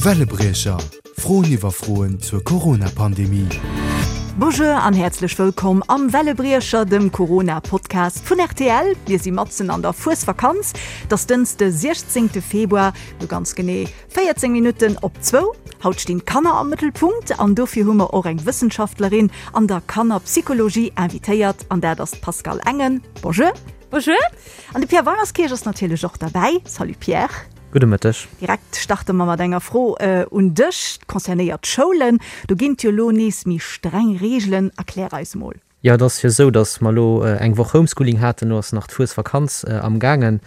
Wellebriecher, Froen iwwer Froen zur Corona-Pandemie. Bonjour an häerzlech wëllkomm am Wellebriecher, dem Corona-Podcast vun rtl. Mir si matzen an der Fuesvakanz. Et ass Dënschde 16 Februar, no ganz genee 14 Minutten op zwou. Haut stinn d'Kanner am Mëttelpunkt an dofir hu mer och eng Wëssenschaftlerin an der Kannerpsychologie invitéiert an dat ass d'Pascale Engen. Bonjour. Bonjour. An de Pierre Weimerskirch ass natierlech och derbäi. Salut Pierre. Gudde Mëtteg. Direkt starte mer mat enger Fro un dech, concernéiert d'Schoulen. Do ginn et jo elo nees méi streng Reegelen. Erklär eis mol. Jo, et ass jo esou, datt mer elo eng Woch Homeschooling haten. Elo ass nach d'Fuesvakanz am gaangen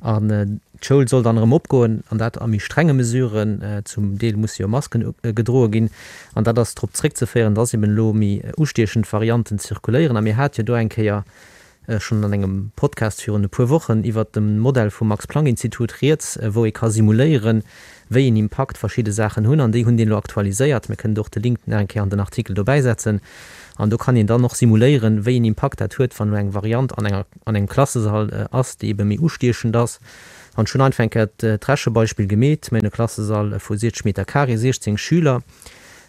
an d'Schoul soll dann erëm opgoen an dat a méi strenge Mesuren. Zum Deel musse jo Masken gedroe ginn an dat ass drop zréckzeféieren, datt eben elo méi ustiechend Varianten zirkuléieren. A mir hate jo do eng Kéier schonn an engem Podcast virun e puer Wochen iwwert de Modell vum Max-Planck-Institut rieds, wou ee ka simuléieren, wéi een Impakt verschidde Saachen hunn. An déi hunn deen elo aktualiséiert. Mir kënnen do och de Link nach eng Kéier an den Artikel dobäisetzen. An do kann een dann och simuléieren, wéi een Impakt dat huet, wann elo eng Variant an enger, an engem Klassesall ass, déi ebe méi ustiechend ass. An ech hunn einfach eng Kéier d'Rechebeispill gemeet, Mir hunn e Klassesall vu 60 Meter carré, 16 Schüler.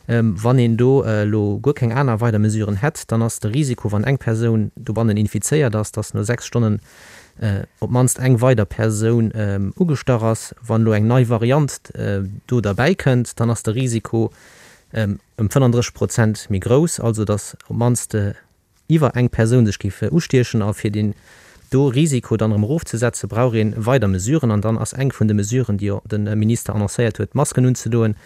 Wann een do elo guer keng aner weider Mesuren hätt, dann ass de Risiko, wann eng Persoun dobannen infizéiert ass, dass no 6 Stonnen op d'mannst eng weider Persoun ugestach ass. Wann elo eng nei Variant do derbäi kënnt, dann ass de Risiko ëm 35 Prozent méi grouss, also dass op d'mannst iwwer eng Persoun sech géif ustiechen. A fir deen do Risiko dann erëm erofzesetzen, brauch ee weider Mesuren. An dann ass eng vun de Mesuren, déi jo de Minister annoncéiert huet, d'Masken unzedoen.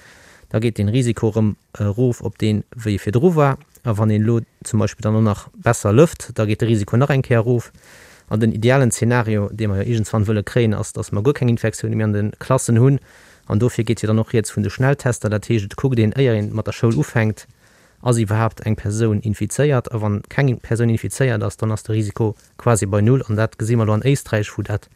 Da geet dee Risiko erëm erof op deen, wéi e virdru war. A wann een elo zum Beispill dann och nach besser lëft, da geet de Risiko nach eng Kéier erof. An den idealen Zeenario, dee mer jo iergendswann wëlle kréien, ass, datt mer guer keng Infektioune méi an de Klassen hunn. An dofir geet jo dann och rieds vun de Schnelltester. Dat heescht, et kuckt een, éier een mat der Schoul ufänkt, Ass iwwerhaapt eng Persoun infizéiert? A wann keng Persoun infizéiert ass, dann ass de Risiko quasi bei Null. An dat gesi mer elo an Éisträich, wou dat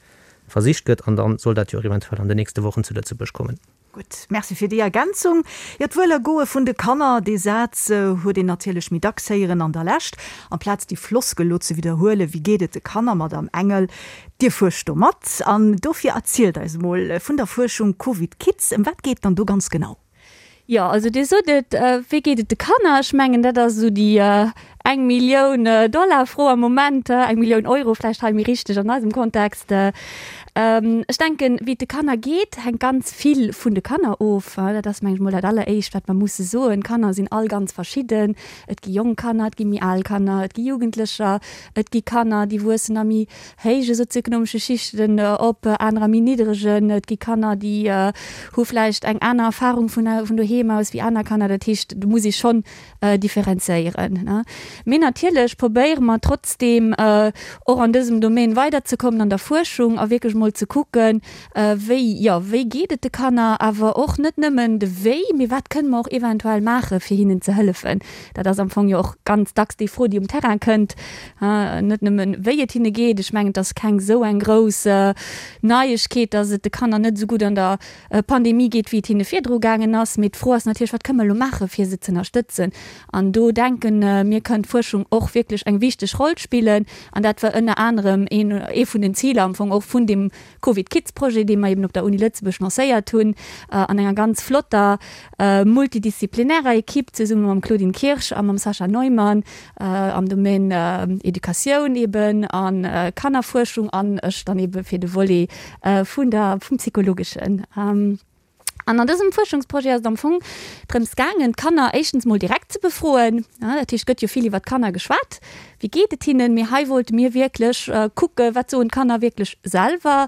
versicht gëtt. An da soll dat jo och eventuell an den nächste Wochen zu Lëtzebuerg kommen. Gutt, Merci fir déi Ergänzung. Jo, d'Wuelergoe vun de Kanner, dee Saz huet een natierlech méi dacks héieren an der Lescht. Amplaz déi Floskel elo ze widderhuelen, Wéi geet et de Kanner, Madamm Engel? Dir fuerscht do mat an dofir erzielt eis emol vun der Fuerschung Covid Kids. Ëm wat geet dann do ganz genau? Jo, also Dir sot et, wéi geet et de Kanner? Ech mengen, dat ass esou déi eng Millioun Dollar Fro am Moment, eng Millioun Euro vläicht hei méi richteg an eisem Kontext. Ech denken, wéi et de Kanner geet, hänkt ganz vill vun de Kanner of. Dat ass, meng ech mol, dat alleréischt, wat mer musse soen. D'Kanner sinn all ganz verschidden. Et gi jonk Kanner, et gi méi al Kanner, et gi Jugendlecher, et gi Kanner, déi wuessen a méi héije sozioekonomesche Schichten op, anerer méi niddregen. Et gi Kanner, déi hu vläicht eng aner Erfahrung vun vun doheem aus wéi aner Kanner. Dat heescht, do muss ee schonn differenzéieren. Mee natierlech probéiere mer trotzdeem och an dësem Domaine weiderzekommen an der Fuerschung a wierklech mol ze kucken, wéi, jo, wéi geet et de Kanner, awer och net nëmmen de Wéi, mee wat kënne mer och eventuell maache fir hinnen ze hëllefen. Dat ass am Fong jo och ganz dacks déi Fro, déi um Terrain kënnt, net nëmmen, wéi et hinne geet. Ech mengen, et ass keng esou eng grouss Neiegkeet, dass et de Kanner net esou gutt an der Pandemie geet, wéi et hinne virdru gaangen ass. Mee d'Fro ass natierlech, Wat kënne mer elo maachen, fir se ze ënnerstëtzen? An do denken mir, kënnt d'Fuerschung och wierklech eng wichteg Roll spillen. An dat war ënner anerem een, ee vun den Ziler am Fong och vun deem Covid Kids Projet, dee mer eben op der Uni Lëtzebuerg lancéiert hunn, an enger ganz flotter multidisziplinärer Equipe zesumme mam Claudine Kirsch a mam Sascha Neumann am Domaine Educatioun eben a Kannerfuerschung an ech dann ebe fir de Volet vun der, vum Psychologeschen. An an dësem Fuerschungsprojet ass et am Fong drëms gaangen, d'Kanner éischtens mol direkt ze befroen. Dat heescht, et gëtt jo vill iwwer d'Kanner geschwat, wéi geet et hinnen? Mee hei wollte mir wierklech kucken, wat soen d'Kanner wierklech selwer?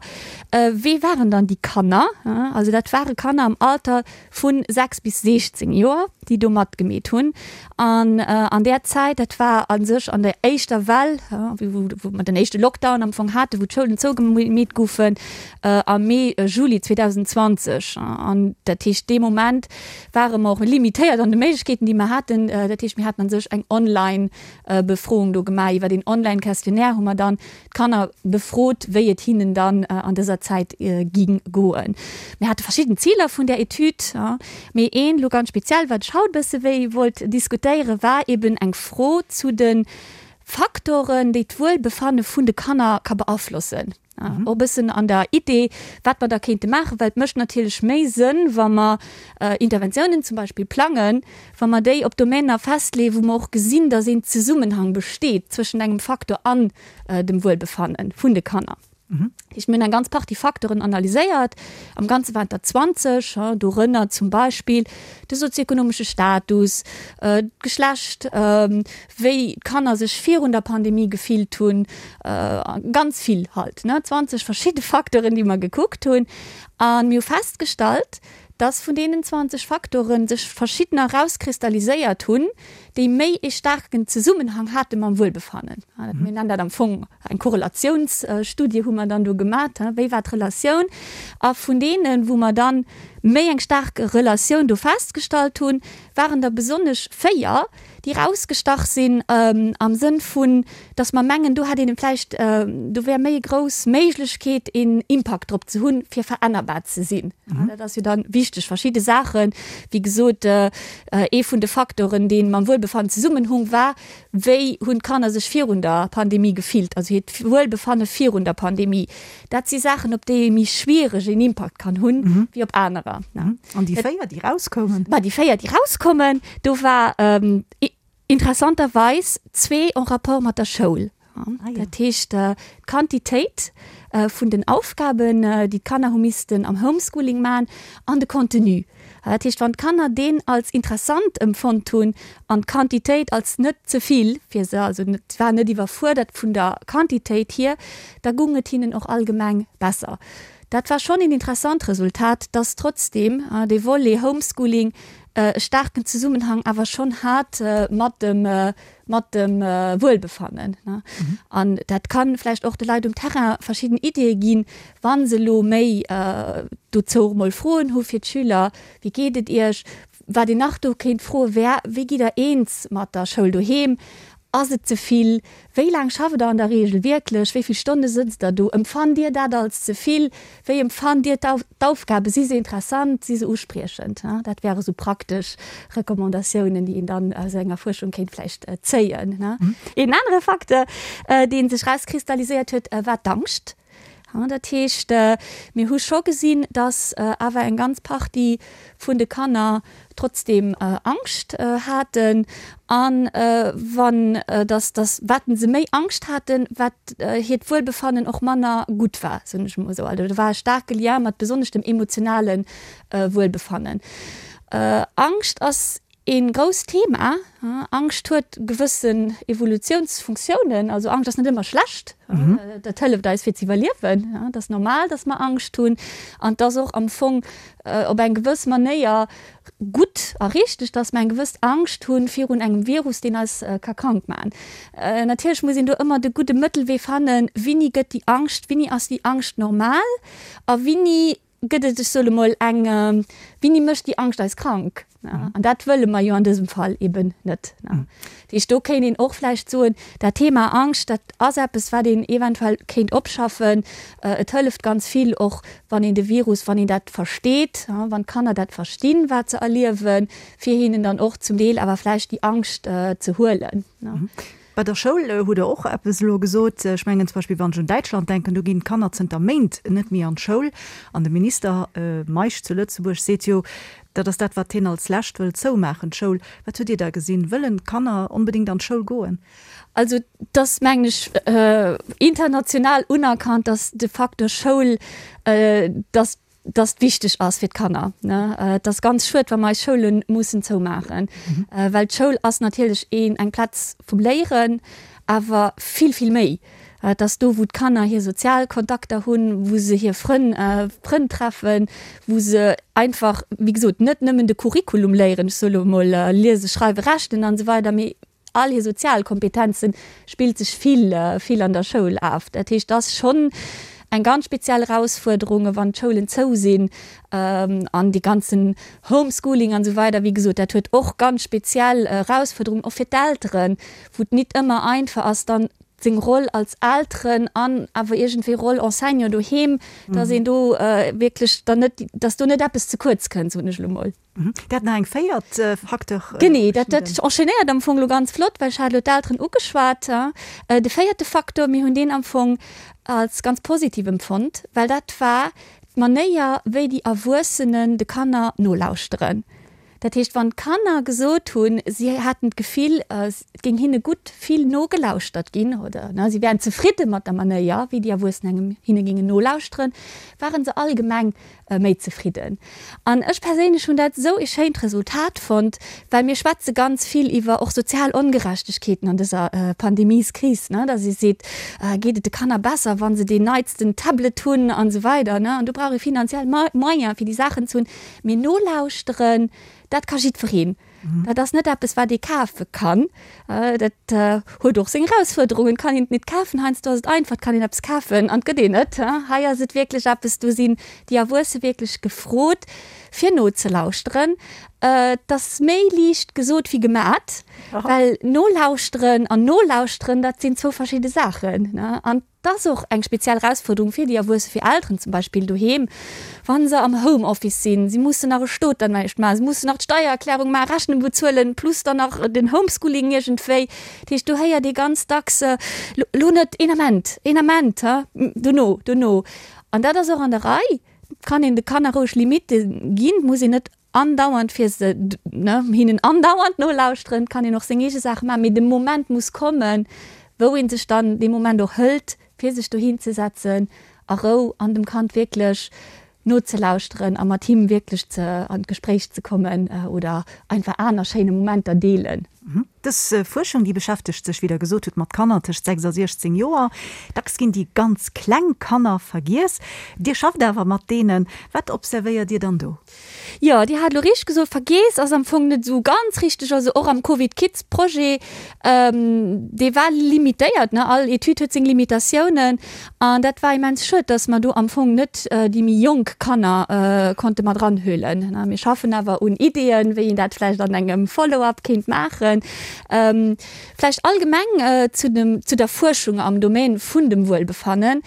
Wee waren dann déi Kanner? Also dat ware Kanner am Alter vu 6 bis 16 Joer, déi do matgemeet hunn. An an där Zäit, dat war a sech an der éischter Well, wou mer den éischte Lockdown am Fong haten, wou d'Schoulen zougemeet goufen, am Mee, Juli 2020. An dat heescht, dee Moment ware mer och limitéiert an de Méiglechkeeten, déi mer haten. Dat heescht, mir haten a sech eng Online-Befroung do gemaach. Iwwer een Online-Questionnaire hu mer dann d'Kanner befrot, wéi et hinnen dann an dëser Zäit ging goen. Mir hate verschidden Ziler vun där Etüd, mee een elo ganz speziell, wat ech haut e bësse wéi wollt diskutéieren, war eben eng Fro zu de Faktoren, déi d'Wuelbefanne vun de Kanner ka beaflossen. Och e bëssen an der Idee, wat mer da kéinte maachen, well et mécht natierlech méi Sënn, wa mer Interventiounen zum Beispill plangen, wa mer déi op Domäner festleeën, wou mer och gesinn, dass een Zesummenhang besteet zwëschent engem Faktor an dem Wuelbefanne vun de Kanner. Dat heescht, mir hunn eng ganz Partie Facteuren analyséiert, am Ganze waren et der 20, dorënner zum Beispill de sozioekonomesche Status, d'Geschlecht, wéi d'Kanner sech virun der Pandemie gefillt hunn, ganz vill halt, ne, 20 verschidde Facteuren, déi mer gekuckt hunn. A mir hu festgestallt, dass vun deenen 20 Facteuren sech verschiddener erauskristalliséiert hunn, déi méi ee staarken Zesummenhang hate mam Wuelbefannen. Mir nennen dat am Fong eng Korrelatiounsstudie hu mer dann do gemat, wéi war d'Relatioun? A vun deenen, wou mer dann méi eng staark Relatioun do festgestallt hunn, waren der besonnesch 4, déi erausgestach sinn am Sënn vun, dass mer mengen, do hätt een vläicht, do wär méi e grouss Méiglechkeet een Impakt drop ze hunn, fir verännerbar ze sinn. Dat ass jo dann wichteg. Verschidde Saachen, wéi gesot, ee vun de Faktoren, dee mam Wuelbefannen zesummenhung, war, wéi hunn d'Kanner sech virun der Pandemie gefillt, also hiert Wuelbefanne virun der Pandemie. Dat si Saachen, op déi ee méi schwiereg een Impakt kann hunn, wéi op anerer. An déi 4, déi rauskoumen? Ma déi 4, déi rauskommen, do war interessanterweis zwee en rapport mat der Schoul. Dat heescht, d'Quantitéit vun den Aufgaben, déi d'Kanner hu missten am Homeschooling maachen, an de Contenu. Dat heescht, wann d'Kanner deen als interessant empfonnt hunn an d'Quantitéit als net ze vill fir se, also et war net iwwerfuerdert vun der Quantitéit hier, da gung et hinnen och allgemeng besser. Dat war schonn een interessant Resultat, dass trotzdeem dee Volet Homeschooling e staarken Zesummenhang awer schonn hat mat dem mat dem Wuelbefannen. An dat ka vläicht och de Leit um Terrain verschidden Iddie ginn, wa se elo méi dozou och emol Froen hu fir d'Schüler, Wéi geet et Iech? Wat een nach do kéint froe wär, Wéi gitt Der eens mat der Schoul doheem? Ass et ze vill? Wéi laang schafft Der an der Reegel wierklech? Wéi vill Stonne sëtzt Der do? Empfannt Dir dat als ze vill? Wéi empfannt Dir d'Aufgaben? Si se interessant? Si se uspriechend? Dat wäre sou praktesch Recommandatiounen, déi een dann aus enger Fuerschung kéint vläicht zéien. Een anere Facteur, dee sech erauskristalliséiert huet, war d'Angscht. Dat heescht, mir hu scho gesinn, datt awer eng ganz Partie vun de Kanner trotzdeem Angscht haten. A wann, datt, datt wat se méi Angscht haten, wat hiert Wuelbefannen och manner gutt war, soen ech emol esou. Also do war e staarke Lien mat besonnesch dem emotionale Wuelbefannen. Angscht ass Een grousst Thema. Angscht huet gewëssen Evolutiounsfunktiounen. Also Angscht ass net ëmmer schlecht. Dat hëlleft eis fir ze iwwerliewen. Et ass normal, datt mer Angscht hunn. An et ass och am Fong op eng gewëss Manéier gutt a richteg, datt mer eng gewëss Angscht hunn virun engem Virus, deen eis ka krank maachen. Natierlech muss een do ëmmer de gudde Mëttelwee fannen, Wini gëtt déi Angscht, wini ass déi Angscht normal a wini Gëtt et, ech soe mol, eng, Wini mécht déi Angscht eis krank? An dat wëlle mer jo an dësem Fall eben net. Dat heescht, do kéint een och vläicht soen, dat Thema Angscht, dat ass eppes, wat een eventuell kéint opschaffen. Et hëlleft ganz vill och, wann een de Virus, wann een dat versteet, wann d'Kanner dat verstinn, wat se erliewen, fir hinnen dann och zum Deel awer vläicht déi Angscht ze huelen. Bei der Schoul hutt Der och eppes elo gesot. Ech mengen zum Beispill, wann ech un Däitschland denken, do ginn d'Kanner zënter Méint net méi an d'Schoul. An de Minister Meisch zu Lëtzebuerg seet jo, dat ass dat, wat hien als lescht wëll zoumaachen, d'Schoul. Wat hutt Dir da gesinn? Wëllen d'Kanner onbedéngt an d'Schoul goen? Also et ass, mengen ech, international unerkannt, datt de Facteur Schoul, datt dass et wichteg ass fir d'Kanner. Et ass ganz schued, wa mer eis Schoule mussen zoumaachen, well d'Schoul ass natierlech een, eng Plaz vum Léieren, awer vill, vill méi. Et ass do, wou d'Kanner hir sozial Kontakter hunn, wou se hir Frënn, Frënn treffen, wou se einfach, wéi gesot, net nëmmen de Curriculum léieren, ech soe lo emol liese, schreiwen, rechnen an esou weider, mee all hir sozial Kompetenzen spillt sech vill, vill an der Schoul af. Dat heescht, et ass schonn eng ganz speziell Erausfuerderung, wann d'Schoulen zou sinn an dee ganzen Homeschooling an esou weider. Wéi gesot, dat huet och ganz speziell Erausfuerderungen, och fir d'Elteren, wou et nit ëmmer einfach ass, dann. Seng Roll als Elteren an awer iergendwéi Roll Enseignant doheem, dass een do wierklech dann net, dass do net eppes ze kuerz kënnt, soen ech elo mol. Dat nach eng véiert Facteur. Genee, dat dat enchaînéiert am Fong elo ganz flott, well ech hat elo d'Elteren ugeschwat. De véierte Facteur, mir hunn deen am Fong als ganz positiv empfonnt, well dat war d'Manéier, wéi déi Erwuessenen de Kanner nolauschteren. Dat heescht, wann d'Kanner gesot hunn, si hätten d'Gefill, et géing hinne gutt vill nogelauschtert ginn oder si wären zefridde mat der Manéier, wéi déi Erwuessen engem hinne géingen nolauschteren, ware se allgemeng méi zefridden. An ech perséinlech hunn dat esou ee schéint Resultat fonnt, well mir schwätze ganz vill iwwer och sozial Ongerechtegkeeten an dëser Pandemieskris, datt ee seet, geet et de Kanner besser, wa se deen neitsten Tablet hunn an esou weider. An do brauch ee finanziell Moyen, fir déi Saachen ze hunn. Mee nolauschteren, dat ka jiddwereen. Dat ass net eppes, wat ee kafe kann. Dat huet och seng Erausfuerderungen. Et kann een et net kafen. Heiansdo ass et einfach, et kann een eppes kafen an et gëtt een et. Hei ass et wierklech eppes, do sinn déi Erwuesse wierklech gefrot, fir nozelauschteren. Et ass méi liicht gesot wéi gemat, well nolauschteren an nolauschteren, dat sinn zwou verschidde Saachen. An 't ass och eng speziell Erausfuerderung fir déi Erwuesse, fir Elteren zum Beispill doheem, wa se am Homeoffice sinn. Si mussen nach e Stot dann näischt maachen, se mussen nach d'Steiererklärung maachen, Rechnung bezuelen, plus dann nach den Homeschooling iergendwéi. Dat heescht, do héiert ee ganz dacks, Lo net, een Ament, een Ament, dono, dono. An dat ass och an der Rei. Et kann een de Kanner roueg Limitte ginn, et muss een net andauernd fir se, ne, hinnen andauernd nolauschteren, kann een och seng eege Saache maachen, mee de Moment muss kommen, wou ee sech dann dee Moment och hëlt, fir sech dohin ze setzen a Rou an dem Kand wierklech nozelauschteren a mat him wierklech ze an d'Gespréich ze kommen oder einfach aner schéine Momenter deelen. Dës Fuerschung, déi beschäftegt sech, wéi Der gesot hutt, mat Kanner tëscht 6 a 16 Joer. Dacks ginn déi ganz kleng Kanner vergiess. Dir schafft awer mat deenen. Wat observéiert Dir dann do? Jo, Dir hat elo richteg gesot, vergiess ass am Fong net esou ganz richteg. Also och am Covid Kids Projet, dee war limitéiert, ne, all Etüd huet seng Limitatiounen an dat war immens schued, datt mer do am Fong net déi méi jonk Kanner konnte mat eranhuelen. Mir schaffen awer un Ideeën, wéi een dat vläicht an engem Follow-up kéint maachen. Vläicht allgemeng zu dem, zu der Fuerschung am Domaine vun dem Wuelbefannen.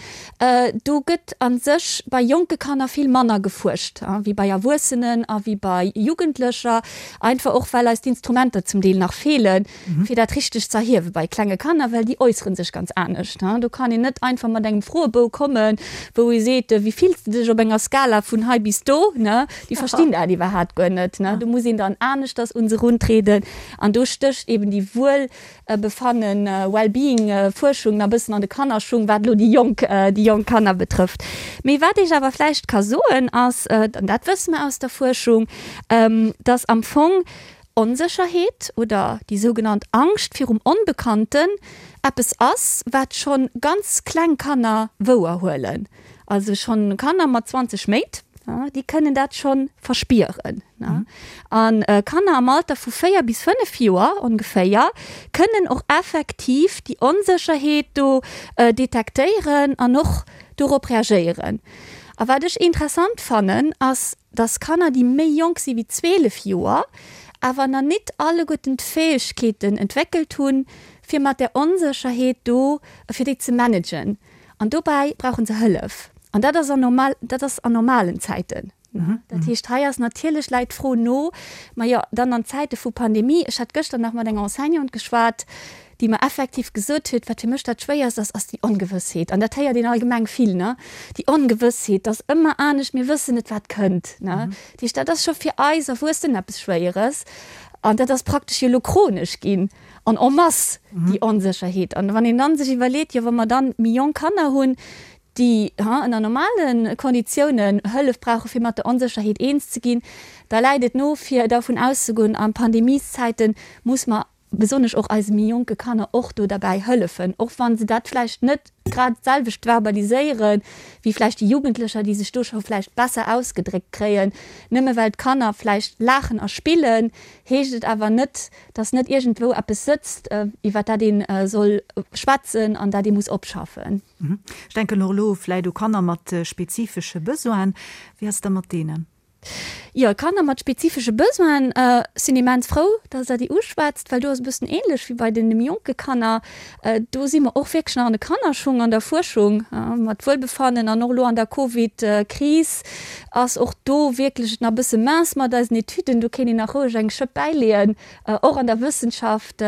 Do gëtt a sech bei jonke Kanner vill manner gefuerscht wéi bei Erwuessenen a wéi bei Jugendlecher, einfach och well eis d'Instrumenter zum Deel nach feelen, fir dat richteg ze erhiewe bei klenge Kanner, well déi äussere sech ganz anescht. Do kann een net einfach mat engem Froebou kommen, wou ee seet, Wéi fills de dech op enger Skala vun hei bis do? Déi verstinn dat iwwerhaapt guer net. Do muss een dann aneschters un se eruntrieden an do stécht eben déi Wuel Befannen, Well-being, Fuerschung nach bëssen an de Kannerschung, wat elo déi jonk, déi jonk Kanner betrëfft. Mee wat ech awer vläicht ka soen ass, an dat wësse mer aus der Fuerschung, dass am Fong Onsécherheet oder déi sougenannt Angscht virum Onbekannten eppes ass, wat scho ganz kleng Kanner wouerhuelen. Also schonn Kanner mat 20 Méint, déi kënnen dat scho verspieren. A Kanner am Alter vu 4 bis 5 Joer ongeféier kënnen och effektiv déi Onsécherheet do detektéieren an och dorop reagéieren. A wat ech interessant fannen, ass, dass Kanner, déi méi jonk si wéi 12 Joer, awer nach nit alleguerten d'Fäegkeeten entwéckelt hunn, fir mat där Onsécherheet do, fir déi ze managen. An dobäi brauche se Hëllef. An dat ass an normal, dat ass an normalen Zäiten. Dat heescht, hei ass natierlech, läit d'Fro no, ma jo, dann an Zäite vu Pandemie, ech hat gëschter nach mat enger Enseignante geschwat, déi mer effektiv gesot huet, wat fir mech dat Schwéierst ass, ass déi Ongewëssheet. An dat héiert een allgemeng vill, ne, déi Ongewëssheet, dat ass ëmmer anescht, mir wëssen net, wat kënnt, ne. Dat heescht, dat ass scho fir eis Erwuessen eppes Schwéieres. An dat ass praktesch jo elo chronesch ginn. An en masse déi Onsécherheet. An wann een dann sech iwwerleet, jo wa mer dann méi jonk Kanner hunn, déi ënner normale Konditiounen Hëllef brauche fir mat der Onsécherheet eens ze ginn, da läit et no fir dervun auszegoen, a Pandemieszäite muss mer besonnesch och eise méi jonke Kanner och do derbäi hëllefen, och wa se dat vläicht net grad d'selwecht verbaliséiere wéi vläicht déi Jugendlecher, déi sech do scho vläicht besser ausgedréckt kréien. Nëmme well d'Kanner vläicht laachen a spillen, heescht et awer net, dass net iergendwou eppes sëtzt, iwwer dat ee soll schwätzen an dat ee muss opschaffen. Ech denken och elo vläit u Kanner mat spezifesche Besoinen. Wéi ass et da mat deenen? Jo, Kanner mat spezifesche Besoinen sinn immens frou, dass Der déi uschwätzt, well do ass e bëssen ähnlech wéi bei den méi jonke Kanner. Do si mer och wierklech nach an de Kannerschung an der Fuerschung mat Wuelbefannen an och elo an der Covid-Kris ass och do wierklech et nach e bësse mince mat eisen Etüden. Do kéint een nach roueg eng Schëpp bäileeën, och an der Wëssenschaft,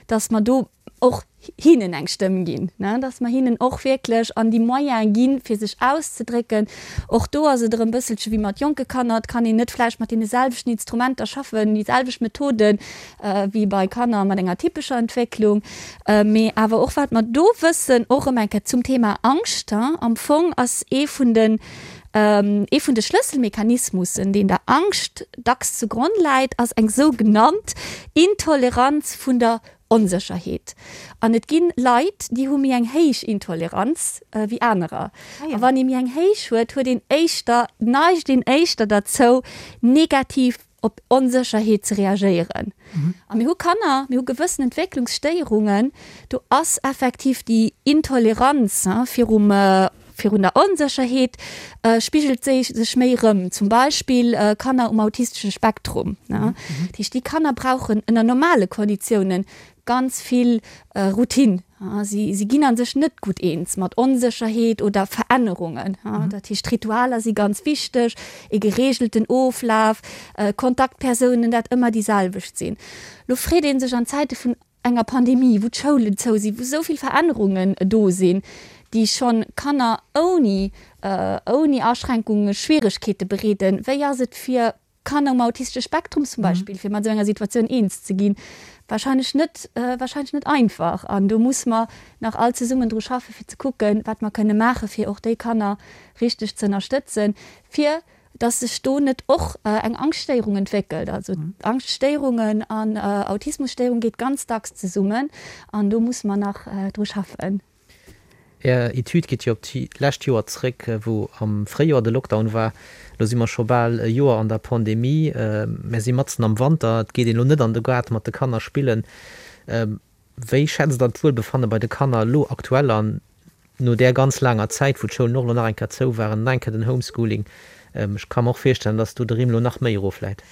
dass mer do och hinnen eng Stëmm ginn, dass mer hinnen och wierklech an déi Moyene ginn, fir sech auszedrécken. Och do ass et erëm e bësselche wéi mat jonke Kanner, et kann een net vläicht mat deene selwechten Instrumenter schaffen, déi selwecht Methoden wéi bei Kanner mat enger typescher Entwécklung. Mee awer och wat mer do wëssen, och erëm eng Kéier zum Thema Angscht, am Fong ass ee vun den, ee vun de Schlësselmechanismussen, deen der Angscht dacks zu Gronn läit, ass eng sougenannt Intoleranz vun der Onsécherheet. An et gi Leit, déi hu méi eng héich Intoleranz wéi anerer. A wann ee méi eng héich huet, huet een éischter, neigt een éischter derzou, negativ op Onsécherheet ze reagéieren. A mir hu Kanner, mir hu gewëssen Entwécklungsstéierungen, do ass effektiv déi Intoleranz virum Virun der Onsécherheet spigelt séi sech méi erëm, zum Beispill Kanner um autistesche Spektrum. Dat heescht, déi Kanner brauchen ënner normale Konditiounen ganz vill Routine. Si si ginn a sech net gutt eens mat Onsécherheet oder Verännerungen. Dat heescht, Ritualer si ganz wichteg, e gereegelten Oflaf, Kontaktpersounen, dat ëmmer déi selwecht sinn. Lo freet ee sech an Zäite vun enger Pandemie, wou d'Schoulen zou sinn, wou esou vill Verännerungen do sinn, déi schonn Kanner ouni, ouni Aschränkunge Schwieregkeete bereeden, wéi ass et fir Kanner um autistesche Spektrum zum Beispill, fir mat esou enger Situatioun eens ze ginn? Wahrscheinlech net, wahrscheinlech net einfach. An do musse mer nach all zesummen dru schaffen, fir ze kucken, wat mer kënne maachen, fir och déi Kanner richteg ze ënnerstëtzen, fir dass sech do net och eng Angschtstéierung entwéckelt. Also Angschtstéierungen an Autismusstéierung geet ganz dacks zesummen an do musse mer nach dru schaffen. Är Etüd geet jo op d'lescht Joer zréck, wou am Fréijoer de Lockdown war. Elo si mer scho bal e Joer an der Pandemie. Mer si matzen am Wanter, et geet een elo net an de Gaart mat de Kanner spillen. Wéi schätzt Der d'Wuelbefanne bei de Kanner elo aktuell an, no där ganz laanger Zäit, wou d'Schoulen och elo nach eng Kéier zou waren, nach eng Kéier den Homeschooling? Ech ka mer och virstellen, dass do de Rimm elo nach méi erofläit.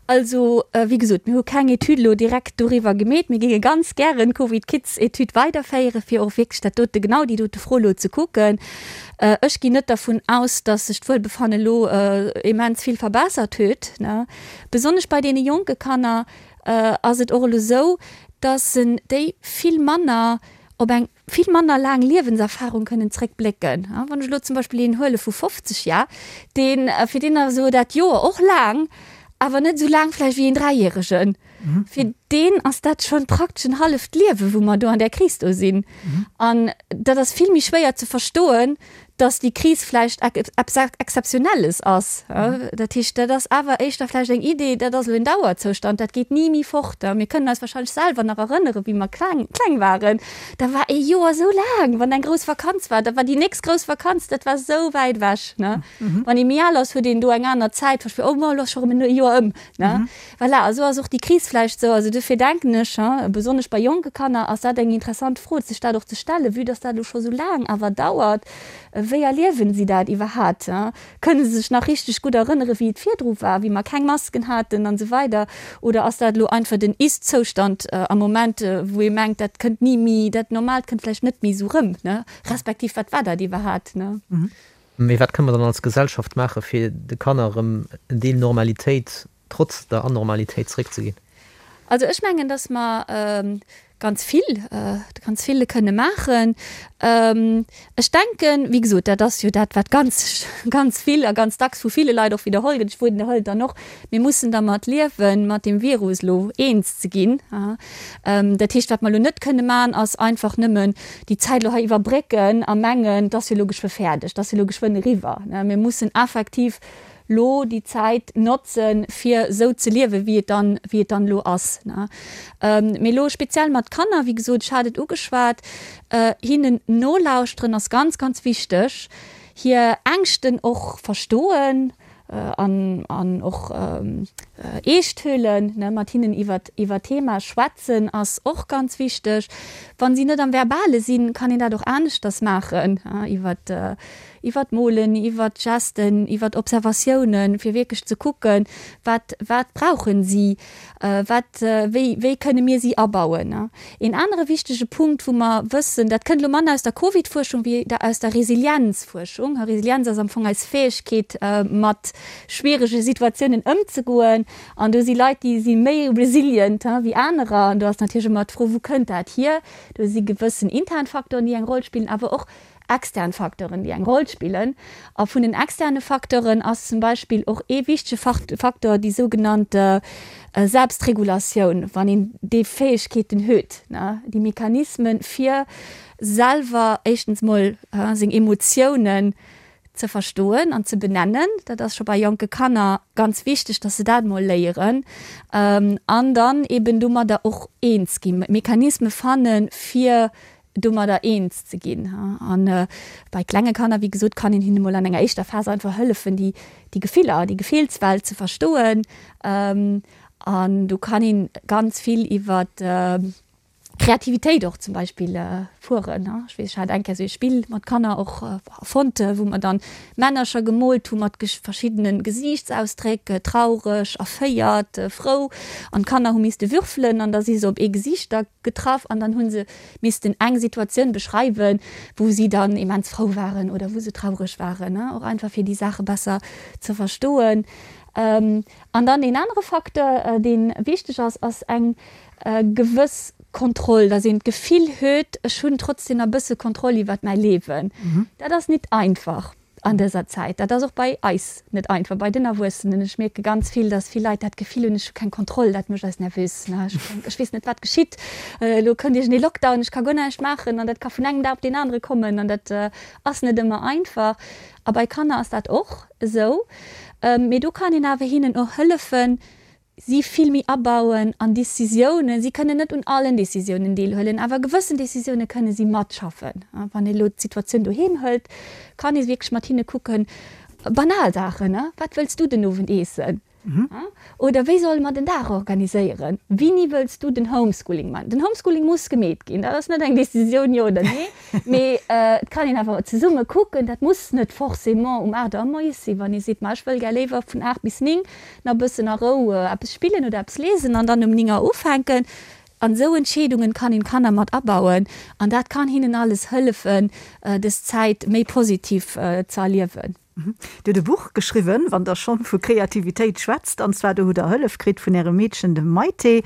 Also, wéi gesot, mir hu keng Etüd elo direkt doriwwer gemeet. Mir géinge ganz gären d'Covid-Kids-Etüd weiderféieren, fir och wierklech dat dote, genau déi dote Fro elo ze kucken. Ech ginn net dervun aus, dass sech d'Wuelbefanne elo immens vill verbessert huet. Besonnesch bei deene jonke Kanner ass et och elo esou, dass déi vill manner op eng vill manner laang Liewenserfahrung kënnen zréckblécken. Wann ech elo zum Beispill een huele vu 50 Jar, deen, fir deen ass elo dat Joer och laang, awer net esou laang vläicht wéi een Dräijäregen. Fir deen ass dat schonn praktesch en halleft Liewe wou mer do an där Kris do sinn. An dat ass vill méi schwéier ze verstoen, dass déi Kris vläicht eppes Exzeptionelles ass. Dat heescht, dat ass awer éischter vläicht eng Idee, dat ass elo en Dauerzoustand, dat geet ni méi fort. Mir kënnen eis wahrscheinlech selwer nach erënneren, wéi mer kleng, kleng waren, da war ee Joer esou laang, wann eng grouss Vakanz war, da war déi nächst grouss Vakanz, dat war esou wäit ewech. Wann ee méi al ass, huet een do eng aner Zäit, oh, elo ass scho erëm e Joer ëm. Voilà, a sou ass och déi Kris vläicht sou. Also dofir denken ech, besonnesch bei jonke Kanner ass dat eng interessant Fro, sech dat och ze stellen, vue dass dat elo scho sou laang awer dauert, wéi erliewen si dat iwwerhat? Kënne se sech nach richteg gutt erënnere wéi et virdru war, wéi mer keng Masken haten an esou weider? Oder ass dat elo einfach den Ist-Zoustand am Moment, wou ee mengt, dat kënnt ni méi, dat Normaalt kënnt vläicht net méi sou rëm, respektiv wat war dat iwwerhat? Mee wat kënne mer dann als Gesellschaft maachen, fir de Kanner erëm en Deel Normalitéit trotz der Anormalitéit zeréckzeginn? Also ech mengen, datt mer ganz vill, ganz vill kënne maachen. Ech denken, wéi gesot, dat ass jo dat, wat ganz, ganz vill a ganz dacks vu ville Leit och widderholl gëtt, ech widderhuelen et dann och, Mir mussen dermat liewen, mat deem Virus elo eens ze ginn. Dat heescht, wat mer elo net kënne maachen, ass einfach nëmmen déi Zäit elo hei iwwerbrécken a mengen, et ass jo elo geschwë fäerdeg, et ass jo elo geschwënn eriwwer. Mir mussen effektiv elo déi Zäit notzen, fir esou ze liewen, wéi et dann, wéi et dann elo ass. Mee elo speziell mat Kanner, wéi gesot, ech hat et ugeschwat, hinnen nolauschteren ass ganz, ganz wichteg, hir Ängschten och verstoen, an an och eescht huelen, ne, mat hinnen iwwert iwwer Thema schwätzen ass och ganz wichteg. Wann si net am Verbale sinn, kann een dat och aneschters maachen, iwwert. Iwwer d'Molen, iwwer d'Gesten, iwwer Observatiounen, fir wierklech ze kucken, wat, wat brauchen si, wat, wéi, wéi kënne mir si abauen. Een anere wichtege Punkt, wou mer wëssen, dat kënnt elo manner aus der Covid-Fuerschung wéi aus der Resilienzfuerschung. Resilienz ass am Fong eis Fäegkeet, mat schwierege Situatiounen ëmzegoen. An do si Leit, déi si méi resilient wéi anerer. An do ass natierlech ëmmer d'Fro, wou kënnt dat hier? Do si gewëssen intern Facteuren, déi eng Roll spillen, awer och extern Facteuren, déi eng Roll spillen. A vun den externe Facteuren ass zum Beispill och ee wichtege Facteur déi sougenannt Selbstregulatioun, wann een déi Fäegkeeten huet, déi Mechanismen, fir selwer éischtens mol seng Emotiounen ze verstoen an ze benennen. Dat ass scho bei jonke Kanner ganz wichteg, dass se dat mol léieren an dann eben domadder och eens ginn, Mechanisme fannen, fir domadder eens ze ginn. A bei klenge Kanner, wéi gesot, kann een hinne mol an enger éischter Phas einfach hëllefen, déi déi Gefiller, déi Gefillswelt ze verstoen. An do kann een ganz vill iwwer Kreativitéit och zum Beispill fueren. Ech weess, ech hat eng Kéier esou ee Spill mat Kanner och erfonnt, wou mer dann Männercher gemoolt hu mat verschiddene Gesiichtsausdréck, traureg, erféiert, frou. An d'Kanner hu misste würfelen an da si se op ee Gesiicht da getraff an dann hu se missten eng Situatioun beschreiwen, wou si dann immens frou waren oder wou se traureg waren, och einfach fir déi Saache besser ze verstoen. An dann een anere Facteur, dee wichteg ass, ass eng gewëss Kontroll, dass een d'Gefill huet, ech hunn trotzdem nach e bësse Kontroll iwwert mäi Liewen. Dat ass nit einfach an dëser Zäit. Dat ass och bei eis net einfach, bei den Erwuessenen. Ech mierke ganz vill, dass vill Leit dat Gefill hunn, ech hu keng Kontroll, dat mécht eis nervös. Ech weess net, wat geschitt, elo kënnt iergendee Lockdown, ech ka guer näischt maachen an dat ka vun engem Dag op deen anere kommen an dat ass net ëmmer einfach. A bei Kanner ass dat och esou. Mee do kann een awer hinnen och hëllefen, si vill méi abauen an Decisiounen. Si kënnen net un allen Decisiounen deelhuelen, awer gewëssen Decisioune kënne si matschaffen. Wann ee elo d'Situatioun doheem hëlt, kann ee wierklech mat hinne kucken, banal Saachen, Wat wëlls du den Owend eessen? Oder wéi solle mer den Dag organiséieren? Wini wëlls du den Homeschooling man? Den Homeschooling muss gemeet ginn, dat ass net eng Decisioun jo oder nee, mee et kann een awer zesumme kucken. Dat muss net forcément um 8 Auer moies sinn, wann ee seet, ma ech wëll gär léiwer vun 8 bis 9 nach bëssen a Rou eppes spillen oder eppes liesen an dann um 9 Auer ufänken. An esou Entscheedungen kann een d'Kanner mat abauen an dat kann hinnen alles hëllefen, des Zäit méi positiv ze erliewen. Dir hutt e Buch geschriwwen, wann Der schonn vu Kreativitéit schwätzt, an zwar do hutt Der Hëllef kritt vun Ärem Meedchen, dem Maïté.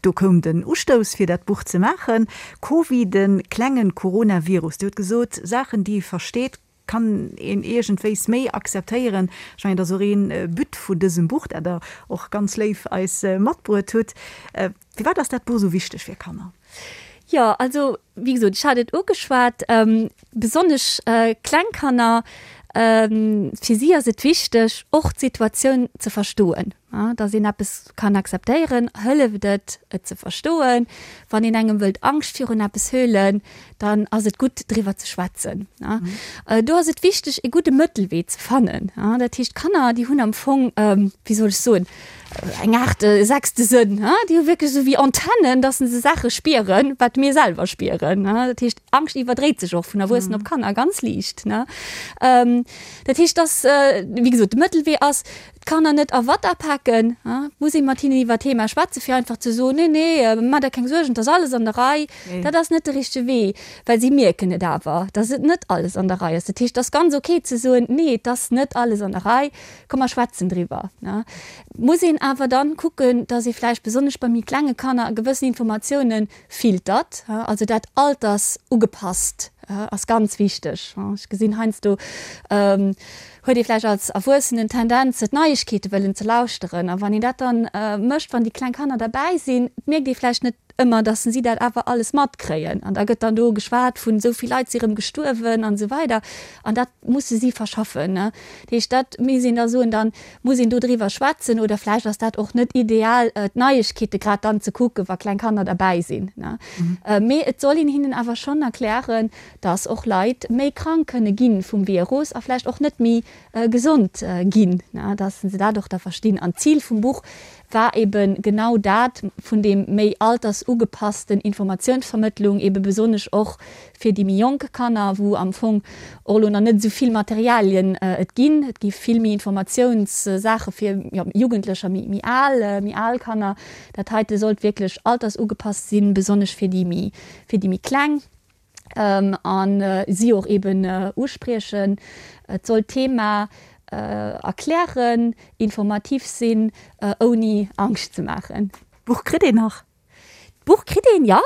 Do koum den Ustouss fir dat Buch ze maachen. Covid, de klengen Coronavirus. Dir hutt gesot, Saachen déi ee versteet, kann een iergendwéis méi akzeptéieren. Ech mengen, dat ass och ee But vun dësem Buch, dat Der och ganz léif eis matbruet hutt. Firwat ass dat Buch esou wichteg fir Kanner? Jo, also wéi gesot, ech hat et ugeschwat, besonnesch kleng Kanner, fir si ass et wichteg, och d'Situatioun ze verstoen. Datt een eppes kann akzeptéieren, hëlleft et, et ze verstoen. Wann een engem wëllt Angscht virun eppes huelen, dann ass et gutt driwwer ze schwätzen. Do ass et wichteg e gudde Mëttelwee ze fannen. Dat heescht d'Kanner déi hunn am Fong, wéi soll ech soen, eng Aart sechste Sënn. Déi hu wierklech esou wéi Antennen, datt se Saache spieren, wat mir selwer spieren. Dat heescht Angscht iwwerdréit sech och vun Erwuessenen op Kanner ganz liicht. Dat heescht datt, wéi gesot, de Mëttelwee ass, D'Kanner net a Watt apaken, muss ee mat hinnen iwwer d'Thema schwätzen, fir einfach ze soen, Nee, nee, maach der keng Suergen, et ass alles an der Rei. Dat ass net de richtege Wee, well si mierken et awer, dass et net alles an der Rei ass. Dat heescht, et ass ganz ok ze soen, Nee, et ass net alles an der Rei, komm mer schwätzen driwwer. Et muss een awer dann kucken, dass ee vläicht besonnesch bei méi klenge Kanner gewëssen Informatiounen filtert, also dat altersugepasst ass ganz wichteg. Ech gesinn heiansdo huet ee vläicht als Erwuessenen d'Tendenz d'Neiegkeete wëllen ze lauschteren a wann een dat dann mécht, wann déi kleng Kanner derbäi sinn, mierkt ee vläicht net ëmmer, datt si dat awer alles matkréien an da gëtt dann do geschwat vun esou vill Leit si rëm gestuerwen an esou weider an dat musse si verschaffen. Dat heescht, dat misst een da soen, dann Muss een do driwwer schwätzen oder vläicht ass dat och net ideal, d'Neiegkeete grad dann ze kucken, wa kleng Kanner derbäi sinn. Mee et soll een hinnen awer schonn erklären, dass och Leit méi krank kënne gi vum Virus a vläicht och net méi gesond ginn, dass se dat och da verstinn. An d'Zil vum Buch war eben genau dat, vun deem méi alters. altersugepassten Informatiounsvermëttlung, ebe besonnesch och fir déi méi jonk Kanner, wou am Fong och elo nach net esou vill Materialien et ginn. Et gi vill méi Informatiounssaache fir, jo, Jugendlecher, méi, méi al, méi al Kanner. Dat heite sollt wierklech altersugepasst sinn, besonnesch fir déi méi, fir déi méi Kleng. A si och eben uspriechen. Et soll d'Thema erklären, informativ sinn, ouni Angscht ze maachen. D'Buch kritt een nach? D'Buch kritt een, jo.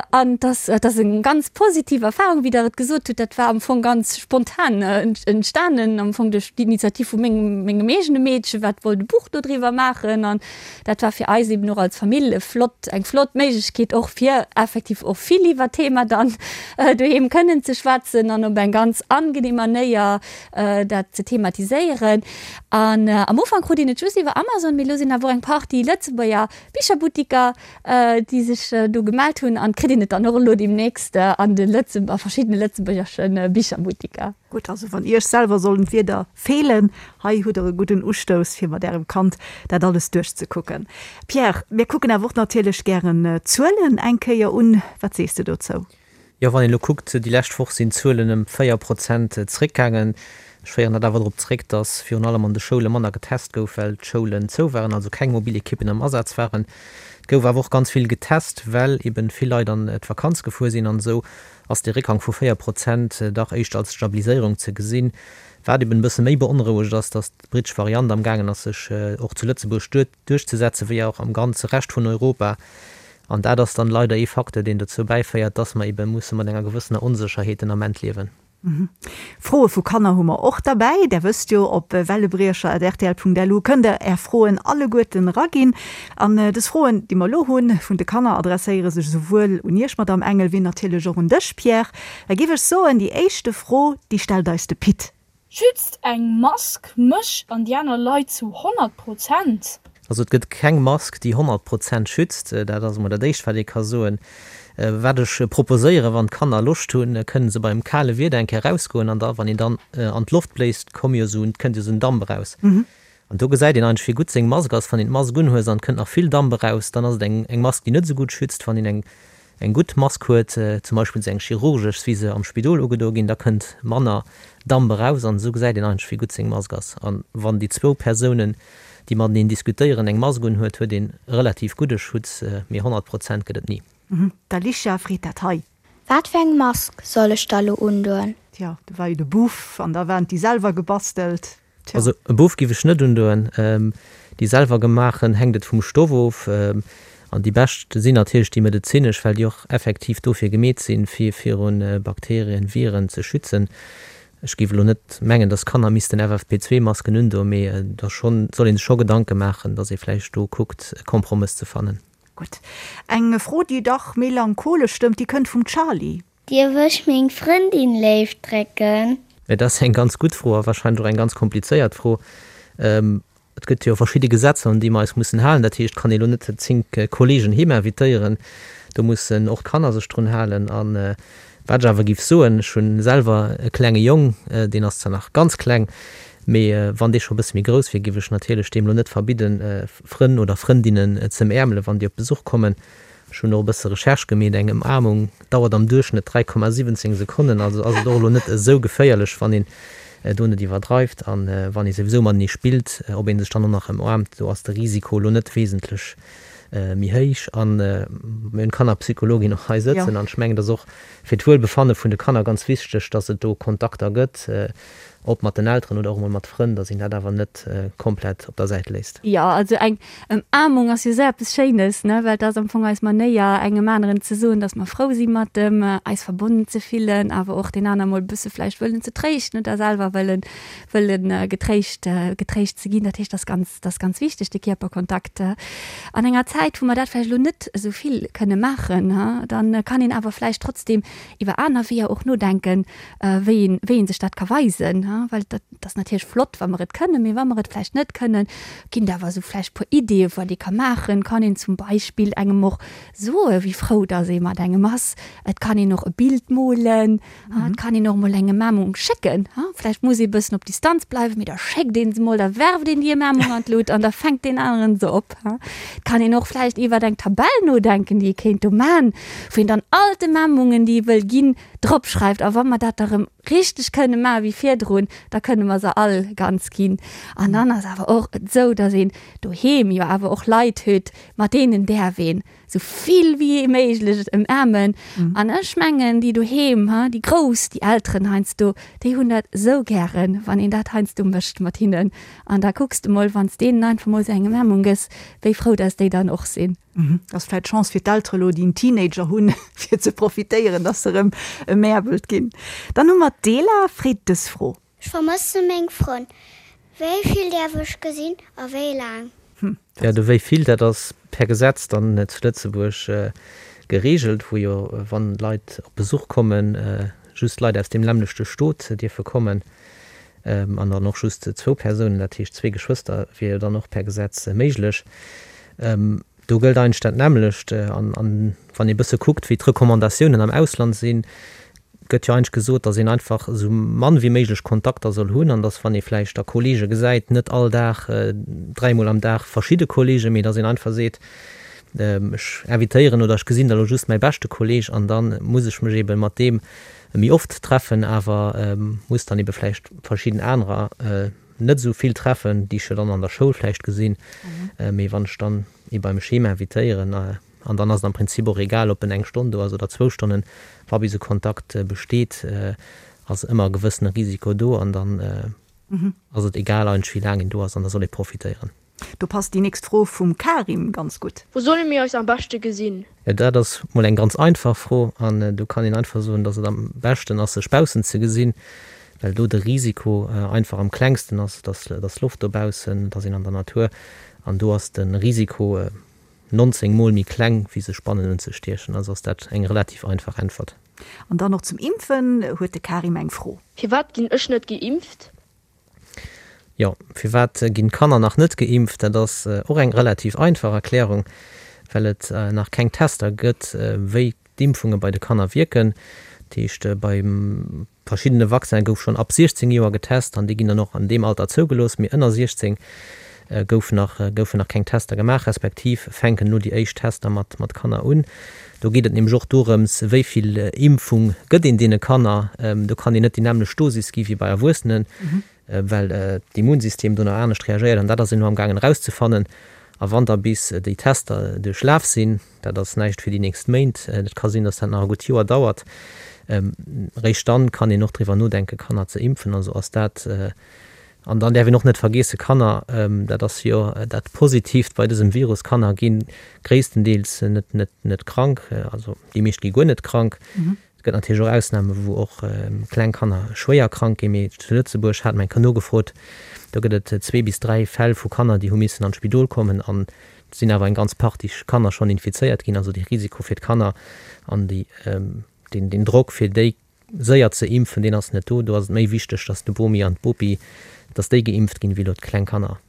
An et ass, et ass eng ganz positiv Erfahrung, wéi Der et gesot hutt. Dat war am Fong ganz spontan entstanen, am Fong duerch d'Initiativ vu mengem, mengem eegene Meedchen, wat wollt e Buch dodriwwer maachen. An dat war fir eis eben och als Famill e flott, eng flott Méiglechkeet och fir effektiv och vill iwwer d'Thema dann doheem kënnen ze schwätzen an op eng ganz angenehm Manéier dat ze thematiséieren. An am Ufank krut een et just iwwer Amazon, mee elo sinn awer och eng Partie Lëtzebuerger Bicherbuttiker, déi sech do gemellt hunn an kritt een et dann och elo deemnächst an de Lëtze a verschiddene lëtzebuergesche Bicherbuttiker. Gutt, also wann Iech selwer sollen d'Wierder feelen, hei hutt der e gudden Ustouss fir mat Ärem Kand dat alles duerchzekucken. Pierre, mir kucken awer och natierlech gären d'Zuelen eng Kéier un. Wat sees de dozou? Jo, wann een elo kuckt, déi lescht Woch sinn d'Zuelen ëm 4 Prozent zeréckgaangen. Ech féieren dat awer drop zeréck, datt virun allem an de Schoule manner getest gouf, well d'Schoulen zou waren, also keng mobil Ekippen am Asaz waren. Et gouf awer och ganz vill getest, well eben vill Leit an d'Vakanz gefuer sinn. An esou ass dee Réckgang vu 4 Prozent dach éischter als Stabiliséierung ze gesinn. Wat eben e bësse méi beonrouegt ass, datt d'brittesch Variant am gaangen ass, sech och zu Lëtzebuerg duerchzesetzen, wéi och am ganze Rescht vun Europa. An dat ass dann leider ee Facteur, deen dozou bäiféiert, dass mer ebe musse mat enger gewëssener Onsécherheet den Ament liewen. Froe vu Kanner hu mer och derbäi. Där wësst jo, op wellebriecher.rtl.lu kënnt der Är Froen alleguerten eraginn. An dës Froen, déi mer elo hunn, vun de Kanner, adresséiere sech esouwuel un Iech, Madamm Engel, wéi natierlech och un dech, Pierre. Da géif ech soen, déi éischte Fro, déi stellt eis de Pit. Schützt eng Mask mech an déi aner Leit zu 100 Prozent? Also et gëtt keng Mask déi 100 Prozent schützt, dat ass emol dat éischt wat ee ka soen. Wat ech proposéieren, wann d'Kanner Loscht hunn, kënnen se beim kale Wieder eng Kéier erausgoen an da wann een dann an d'Loft bléist, komm jo esou, kënnt jo esou en Damp eraus. An do gesäit een eigentlech wéi gutt seng Mask ass. Wann een d'Mask unhues an et kënnt nach vill Damp eraus, dann ass et eng eng Mask déi net esou gutt schützt. Wann een eng eng gutt Mask huet, zum Beispill esou eng chirurgesch wéi se am Spidol ugedo ginn, da kënnt manner Damp eraus an esou gesäit een eigentlech wéi gutt seng Mask ass. An wann déi zwou Persounen déi mateneen diskutéieren eng Mask unhuet, huet een relativ gudde Schutz, mee 100 Prozent gëtt et ni. D'Alicia freet dat hei. Wat fir eng Mask soll ech da lo undoen? Tja, do war jo de Buff an da waren déi selwer gebastelt. Tja. Also e Buff giff ech net undoen. Déi selwer gemaachen hänkt et vum Stoff of. An déi bescht sinn natierlech déi medezinesch, well déi och effektiv dofir gemeet sinn, fir virun Bakterien, Viren ze schützen. Ech giff elo net mengen, dass Kanner missten FFP2 Masken undoen, mee da schonn soll ee sech scho Gedanke maachen, dass ee vläicht do kuckt e Kompromëss ze fannen. Gutt. Eng Fro, déi dach melancholesch stëmmt, déi kënnt vum Charly. Dierf ech meng Frëndin léif drécken? Et ass eng ganz gutt Fro a wahrscheinlech och eng ganz komplizéiert Fro. Et gëtt jo verschidde Gesetzer, un déi mer eis mussen halen. Dat heescht, et kann ee lo net 10 Kollegen heem invitéieren. Do mussen och d'Kanner sech drun halen. A wat ech awer géif soen, ech hu selwer e klenge Jong, deen ass zwar nach ganz kleng, mee wann dee scho e bësse méi grouss wier, géif ech natierlech deem lo net verbidden, Frënn oder Frëndinnen z'ëmäermelen, wann déi op Besuch kommen. Ech hunn och e bësse Recherche gemeet, eng Ëmaarmung dauert am Duerchschnëtt 3,17 Sekonnen, also ass et och elo net esou geféierlech, wann een do net iwwerdreift. An wann ee souwisou matenee spillt, ob ee sech dann och nach ëmaarmt, do ass de Risiko elo net wesentlech méi héich. A mir hunn d'Kannerpsychologin och hei sëtzen an ech mengen, et ass och fir d'Wuelbefanne vun de Kanner ganz wichteg, dass et do Kontakter gëtt, ob mat den Elteren oder och emol mat Frënn, dass een dat awer net komplett op der Säit léisst. Jo, also eng Ëmaarmung ass jo esou eppes Schéines, ne, well et ass am Fong eis Manéier, engem aneren ze soen, dass mer frou si mat em, eis verbonnen ze fillen, awer och deen aner mol e bësse vläicht wëllen ze tréischten oder selwer wëllen, wëllen getréischt, getréischt ze ginn. Dat heescht, dat ass ganz, dat ass ganz wichteg, de Kierperkontakt. An enger Zäit, wou mer dat vläicht elo net esou vill kënne maachen, dann kann een awer vläicht trotzdem iwwer aner Weeër och nodenken, wéi een, wéi een sech dat ka weisen. Well dat ass natierlech flott, wa mer et kënnen, mee wa mer et vläicht net kënnen, ginn et awer esou vläicht e puer Ideeë wat ee ka maachen. Kann een zum Beispill engem och soe wéi frou datt ee mat engem ass. Et kann een och e Bild molen. Et kann een och emol eng Emaarmung schécken. Vläicht muss ee bëssen op Distanz bleiwen, mee da schéckt ee se mol, da werft een déi Emaarmung an d'Lut an da fänkt deen aneren se op. Et kann een och vläicht iwwert eng Tabell nodenken, déi ee kéint do man, wou een dann all d'Emaarmungen, déi ee wëll ginn, drop schreift. A wa mer dat da rëm richteg kënne maache wéi virdrun, da kënne mer se all ganz ginn. An dann ass awer och et esou, datt een doheem jo awer och Leit huet, mat deenen däerf een esou vill wéi méiglech ëmaarmen. An ech mengen, déi doheem, déi Grouss, déi Elteren heiansdo, déi hunn dat esou gären, wann een dat heiansdo mécht mat hinnen. An da kucks de mol, wann s deenen einfach mol esou eng Ëmaarmung gëss, wéi frou dass déi dann och sinn. Dat ass vläicht d'Chance fir d'Eltere lo, déi en Teenager hunn, fir ze profitéieren, dass se erëm emäerbelt ginn. Dann hu mer d'Ela, freet dës Fro. Ech vermësse meng Frënn. Wéi vill däerf ech gesinn a wéi laang? Jo, de wéi vill, dat ass per Gesetz dann zu Lëtzebuerg gereegelt, wou jo, wann Leit op Besuch kommen, just Leit aus deem nämmlechte Stot dierfe kommen an dann och just zwou Persounen, dat heescht zwee Geschwëster wier jo dann och per Gesetz méiglech. Do gëllt eigentlech dat nämmlecht. An wann ee bësse kuckt, wéi d'Recommandatiounen am Ausland sinn, gëtt jo eigentlech gesot, datt een einfach esou mann wéi méiglech Kontakter soll hunn an datt, wann ee vläicht da Kollege gesäit, net all Dag, dräimol am Dag verschidde Kollegen, mee datt een einfach seet, ech invitéieren oder ech gesinn da lo just mäi beschte Kolleg an da muss ech mech eebe mat deem méi oft treffen, awer muss dann eebe vläicht verschidden anerer net esou vill treffen, déi ech jo dann an der Schoul vläicht gesinn, mee wann ech dann ee beim Schema invitéieren, an dann ass et am Prinzip och egal, ob en eng Stonn do ass oder zwou Stonnen, wa bis e Kontakt besteet, ass ëmmer e gewëssene Risiko do an dann ass et egal eigentlech wéi laang een do ass an da soll ee profitéieren. Do passt déi nächst Fro vum Karim ganz gutt. Wou solle mir eis am beschte gesinn? Dat ass mol eng ganz einfach Fro an do kann een einfach soen, dass et am beschten ass sech baussen ze gesinn, well do de Risiko einfach am klengsten ass. Et ass, et ass Loft dobaussen, et ass een an der Natur an do ass de Risiko 19 mol méi kleng wéi sech bannen unzestiechen. Also ass dat eng relativ einfach Äntwert. An dann och zum Impfen huet de Karim eng Fro. Firwat ginn ech net geimpft? Jo, firwat ginn d'Kanner nach net geimpft? Dat ass och eng relativ einfach Erklärung, well et nach keng Tester gëtt, wéi d'Impfunge bei de Kanner wierken. Dat heescht, bei verschiddene Vaccine gouf schonn ab 16 Joer getest an déi ginn dann och an deem Alter zougelooss, mee ënner 16 gouf nach, goufen nach keng Tester gemaach, respektiv fänken elo déi éischt Tester mat mat Kanner un. Do geet et nämlech och dorëms, wéi vill Impfung gëtt een deene Kanner. Do kann een net déi nämmlecht Dosis gi wéi bei Erwuessenen, well d'Immunsystem do nach anescht reagéiert an dat ass een elo amgaangen erauszefannen. A wann da bis déi Tester duerchlaf sinn, dat ass näischt fir déi nächst Méint, et ka sinn, datt dat nach e gutt Joer dauert, réischt dann kann een och driwwer nodenken, Kanner ze impfen. Also ass dat An dann däerf een och net vergeesse, Kanner, dat ass jo dat Positiivt bei dësem Virus, Kanner gi gréisstendeels net, net, net krank, also déi meescht gi guer net krank. Et gëtt natierlech och Ausname wou och kleng Kanner schwéier krank ginn, mee zu Lëtzebuerg hat mer eng Kéier nogefrot, do gëtt et zwee bis dräi Fäll vu Kanner, déi hu missen an d'Spidol kommen an et sinn awer eng ganz Partie Kanner schonn infizéiert ginn. Also de Risiko fir d'Kanner an déi, deen, deen Drock fir déi séier ze impfen, deen ass net do. Do ass et méi wichteg, dass de Bomi an d'Bopi, dass déi geimpft ginn, wéi elo d'kleng Kanner.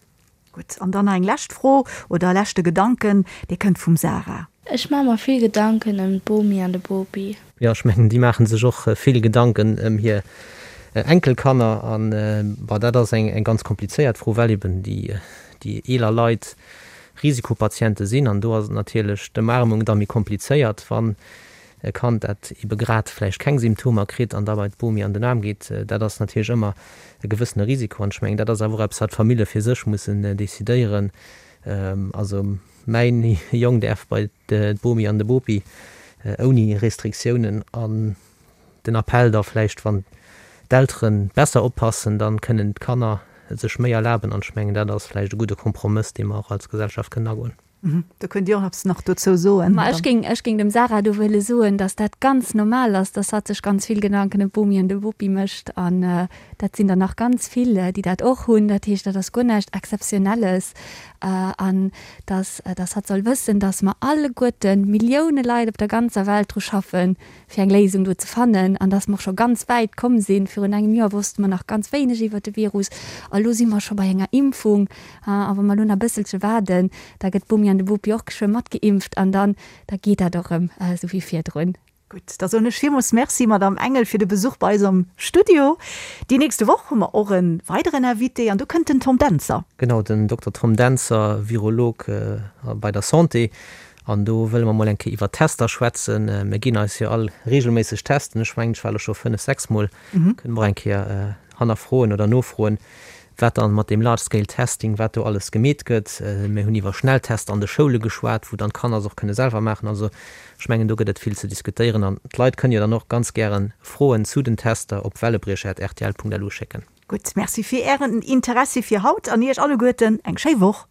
Gutt, an dann nach eng lescht Fro oder e leschte Gedanken, dee kënnt vum Sarah. Ech maache mer vill Gedanken ëm d'Bomi an de Bopi. Jo, ech mengen, déi maache sech och vill Gedanken ëm hir Enkelkanner. An, bon, dat ass eng ganz komplizéiert Fro, well eben déi eeler Leit Risikopatiente sinn. An do ass et natierlech d'Ëmarmung da méi komplizéiert, wann E Kand, dat ebe grad vläicht keng Symptomer kritt an da bei d'Bomi an den Aarm geet, dat ass natierlech ëmmer e gewëssene Risiko. An ech mengen, dat ass awer och eppes, wat d'Famille fir sech mussen decidéieren. Also mäin Jong däerf bei d'Bomi an de Bopi ouni Restriktiounen. An den Appell da vläicht, wann d'Eltere besser oppassen, da kënnen d'Kanner sech méi erlaben. An ech mengen, dat ass vläicht e gudde Kompromëss, dee mer och als Gesellschaft kënnen agoen. Do kënnt Dir och eppes nach dozou soen. Ma ech géing, ech géing dem Sarah do wëlle soen, dass dat ganz normal ass, dass hatt sech ganz vill Gedanken ëm d'Bomi an de Bopi mécht. An dat sinn der nach ganz vill, déi dat och hunn. Dat heescht, dat ass guer näischt Exzeptionelles. An dass, dass hatt soll wëssen, dass mer alleguerten, Millioune Leit op der ganzer Welt dru schaffen, fir eng Léisung do ze fannen an dass mer och scho ganz wäit komm sinn. Virun engem Joer wosste mer nach ganz wéineg iwwert de Virus a lo si mer scho bei enger Impfung. A wa mer elo nach e bësselche waarden, da gëtt d'Bomi an de Bopi och geschwë matgeimpft an dann, da geet dat och erëm esou wéi virdrun. Gutt, da soen ech villmools Merci, Madamm Engel, fir de Besuch bei eis am Studio. Déi nächste Woch hu mer och e weideren Invité an do kënnt den Tom Dentzer. Genau, den Dokter Tom Dentzer, Virolog bei der Santé. An do wëlle mer mol eng Kéier iwwer Tester schwätzen. Mir ginn eis jo all reegelméisseg testen. Ech mengen, ech war elo scho fënnef, sechs Mol. Kënne mer och eng Kéier hannerfroen oder nofroen, wat dann mat deem Large Scale Testing, wat do alles gemeet gëtt. Mir hunn iwwer Schnelltester an de Schoule geschwat, wou dann d'Kanner se och kënne selwer maachen. Also ech mengen, do gëtt et vill ze diskutéieren. An d'Leit kënnen jo dann och ganz gäre Froen zu den Tester op wellebriecher@rtl.lu schécken. Gutt, Merci fir Ären Interessi fir haut an Iech alleguerten eng schéi Woch.